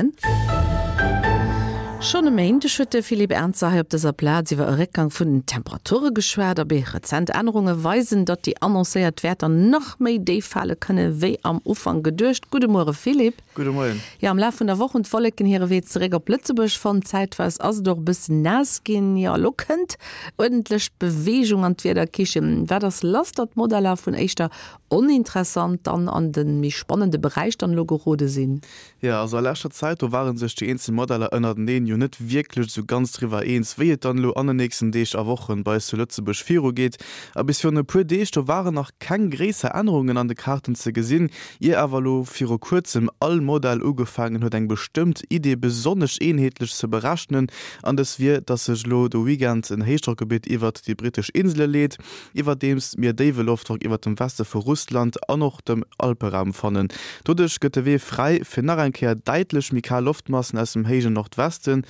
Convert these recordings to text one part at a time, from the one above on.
Moien. Schonn e Méindeg huet de Philippe Ernzer hei op dëser Plaz iwwer e Réckgang vun den Temperature geschwat. Abee, rezent Ännerunge weisen, datt déi annoncéiert Wäerter nach méi déif fale kënne wéi am Ufank geduecht. Gudde Muere Philippe. Gudde Moien. Jo, am Laf vun der Woch hunn d'Wolleken hire Wee zeréck op Lëtzebuerg fonnt. Zäitweis ass et och e bëssen naass ginn. Jo, elo kënnt uerdentlech Beweegung an d'Wiederkichen. Wat ass lass, datt d'Modeller vun éischter oninteressant dann an de méi spannende Beräich dann elo gerode sinn? Jo, also a leschter Zäit, do ware sech déi eenzel Modeller ënnerteneen jo net wierklech esou ganz driwwer eens, wéi et dann elo an den nächsten Deeg a Wochen bei eis zu Lëtzebuerg virugeet. A bis virun e puer Deeg, do waren nach keng gréisser Ännerungen an de Kaarten ze gesinn, ier awer elo viru kuerzem all Modell ugefaangen huet eng bestëmmt Idee besonnesch eenheetlech ze berechnen, an dës wier, dass sech elo de Weekend en Héichdrockgebitt iwwert déi brittesch Insele leet. iwwerdeems mir déiwe Loftdrock iwwert dem Weste vu Russland an och dem Alperaum fannen. Doduerch gëtt de Wee fräi fir nach eng Kéier däitlech méi kal Loftmassen aus dem héijen Nordwesten,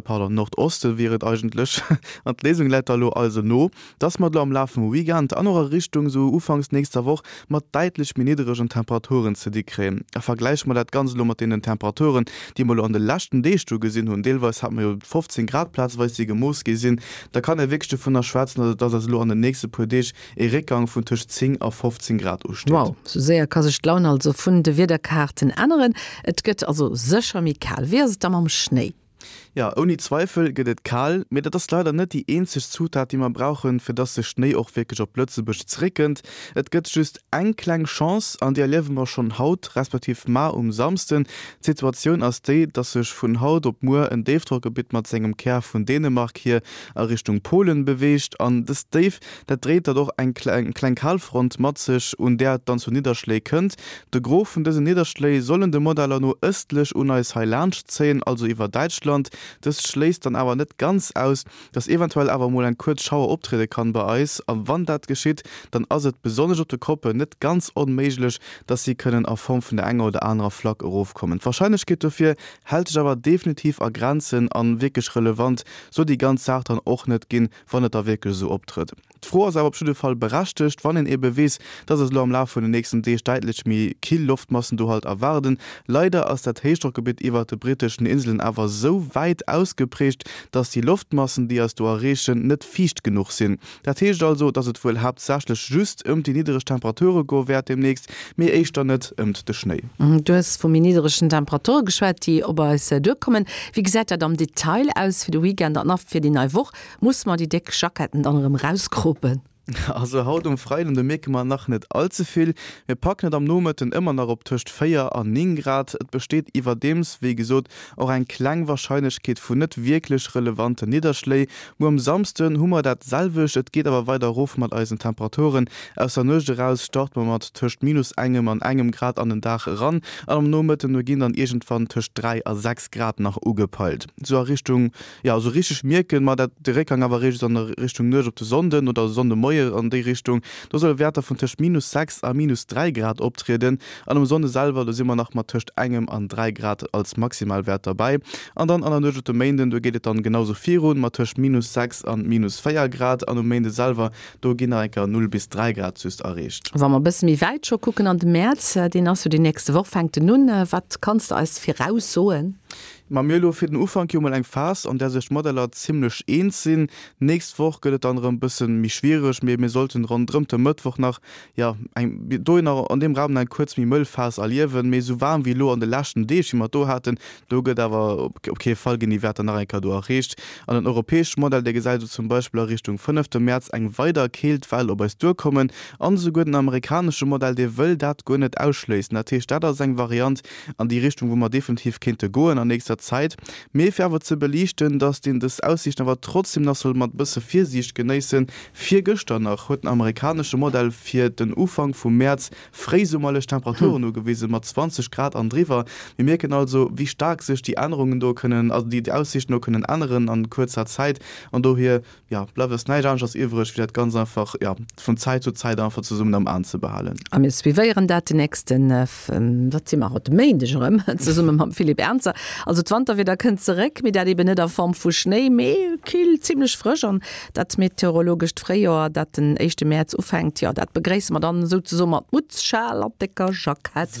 pardon, Nordoste wier et eigentlech. An d'Léisung läit da lo also no, dass mer et lo am Laf vum Weekend an och a Richtung sou ufanks nächster Woch mat däitlech méi nidderegen Temperaturen ze di kréien. A vergläiche mer dat Ganzt elo mat deenen Temperaturen, déi mer elo an de leschten Deeg do gesinn hunn, deelweis hate mer jo 15 Grad plazeweis, déi gemooss gi sinn, da kann ee wierklech dovunner schwätzen, dass eis elo an den nächste puer Deeg ee Réckgang vun tëscht 10 a 15 Grad usteet. Wow, sou séier ka sech d'Laun also vun de Wiederkaarten änneren. Et gëtt also sécher méi kal. Wéi ass et da mam Schnéi? Jo, ouni Zweifel gëtt et kal, mee dat ass leider net déi eenzeg Zutat, déi mer brauchen, fir dass de Schnéi och wierklech op Lëtzebuerg zeréckkënnt. Et gëtt just eng kleng Chance, an déi erliewe mer schonn haut, respektiv mar um Samsden. D'Situatioun ass déi, dass sech vun haut op muer en Déifdrockgebitt mat sengem Kär vun Dänemark hier a Richtung Polen beweegt an dëst Déif, dat dréit dann och eng kleng Kalfront mat sech, un där et dann zu Nidderschléi kënnt. De Gros vun dësen Nidderschléi sollen de Modeller no ëstlech un eis hei laanscht zéien, also iwwer Däitschland. Dëst schléisst dann awer net ganz aus, dass eventuell awer mol eng kuerz Schauer optriede kann bei eis, a wann dat geschitt, dann ass et besonnesch op de Koppen net ganz onméiglech, dass si kënnen a Form vun der enger oder anerer Flack erofkommen. D'Warscheinlechkeet dofir hält sech awer definitiv a Grenzen an wierklech relevant soll déi ganz Saach dann och net ginn, wann et da wierklech esou optrëtt. D'Fro ass awer op jidde Fall berechtegt, wann een ebe weess, dass eis elo am Laf vun den nächsten Deeg däitlech méi kill Loftmassen do halt erwaarden. Leider ass dat Héichdrockgebitt iwwert de britteschen Inselen awer esou wäit ausgeprägt, dass déi Loftmassen, déi eis do erreechen, net fiicht genuch sinn. Dat heescht also, dass et wuel haaptsächlech just ëmt déi niddereg Temperature goe wäert demnächst, mee éischter net ëmt de Schnéi. Du hues vu méi nidderegen Temperature geschwat, déi op eis duerkommen. Wéi gesäit dat am Detail aus fir de Weekend an a fir déi nei Woch? Musse mer déi déck Jacketten dann erëm rauskropen? Also haut um Freiden, do mierke mer nach net all ze vill. Mir packen et am Nomëtten ëmmer nach op tëscht 4 an 9 Grad. Et besteet iwwerdeems, wéi gesot, och eng kleng Warscheinlechkeet vu net wierklech relevanten Nidderschléi. Muer um Samsden hu mer dat selwecht, et geet awer weider erof mat eisen Temperaturen. Aus der Nuecht eraus starte mer mat tëscht minus engem an engem Grad an den Dag eran an am Nomëtten do ginn dann iergendwann tëscht 3 a 6 Grad nach ugepeilt. Sou a Richtung Jo, esou richteg mierken mer dat de Réckgang awer eréischt an der Richtung Nuecht op de Sonnden oder Sonndemoie an déi Richtung. Do solle Wäerter vun tëscht minus 6 a minus 3 Grad optrieden an um Sonnde selwer, do si mer nach mat tëscht engem an 3 Grad als Maximalwäert derbäi. An dann an der Nuecht op de Méinden, do geet et dann genau sou virun mat tëscht minus 6 an minus 4 Grad an um Méinde selwer, do ginn nach eng Kéier 0 bis 3 Grad just erreecht. Wa mer e bësse méi wäit scho kucken an de Mäerz, deen ass jo déi nächste Woch, fänkt en un. Wat kanns de eis viraussoen? Ma mir hu lo fir den Ufank jo mol eng Phas, an där sech d'Modeller zimmlech eens sinn. D'nächst Woch gëtt et dann erëm bësse méi schwiereg, mee mir sollten ronderëmt de Mëttwoch nach, jo, eng dohinner an deem Raum nach eng kuerz méi mëll Phas erliewen. Mee esou waarm wéi elo an de leschten Deeg, wéi mer et do haten, do gëtt awer op kee Fall ginn déi Wäerter nach eng Kéier do erreecht. An den europäesche Modell, dee gesäit elo zum Beispill a Richtung fënnefte Mäerz eng weider Keeltwell op eis duerkommen. An esouguer den amerikanesche Modell, dee wëll dat guer net ausschléissen. Dat heescht, dat ass eng Variant, an déi Richtung, wou mer definitiv kéinte goen an nächster Zäit. Mee fir awer ze beliichten, dass een dës Aussiichten awer trotzdem nach soll mat bësse Virsiicht genéissen, Virgëschter nach huet den amerikanesche Modell fir den Ufank vum Mäerz fréisummerlech Temperaturen ugewise mat 20 Grad an driwwer. Mir mierken also, wéi staark sech déi Ännerungen do kënnen, also déi Aussiichten do kënnen änneren an kuerzer Zäit. An dohier Jo, bleift eis näischt aneschters iwwreg, wéi dat Ganzt einfach, jo, vun Zäit zu Zäit einfach zesummen am Aen ze behalen. A mir suivéieren dat den nächsten, wat si mer haut, Méindeg erëm, zesumme mam Philippe Ernzer. Also d'Wanterwieder kënnt zeréck, mee dat eben net a Form vu Schnéi, mee kill, zimmlech frësch. An dat meteorologescht Fréijoer, dat den éischte Mäerz ufänkt, jo, dat begréisse mer dann souzesoe mat Mutz, Schal an décker Jackett.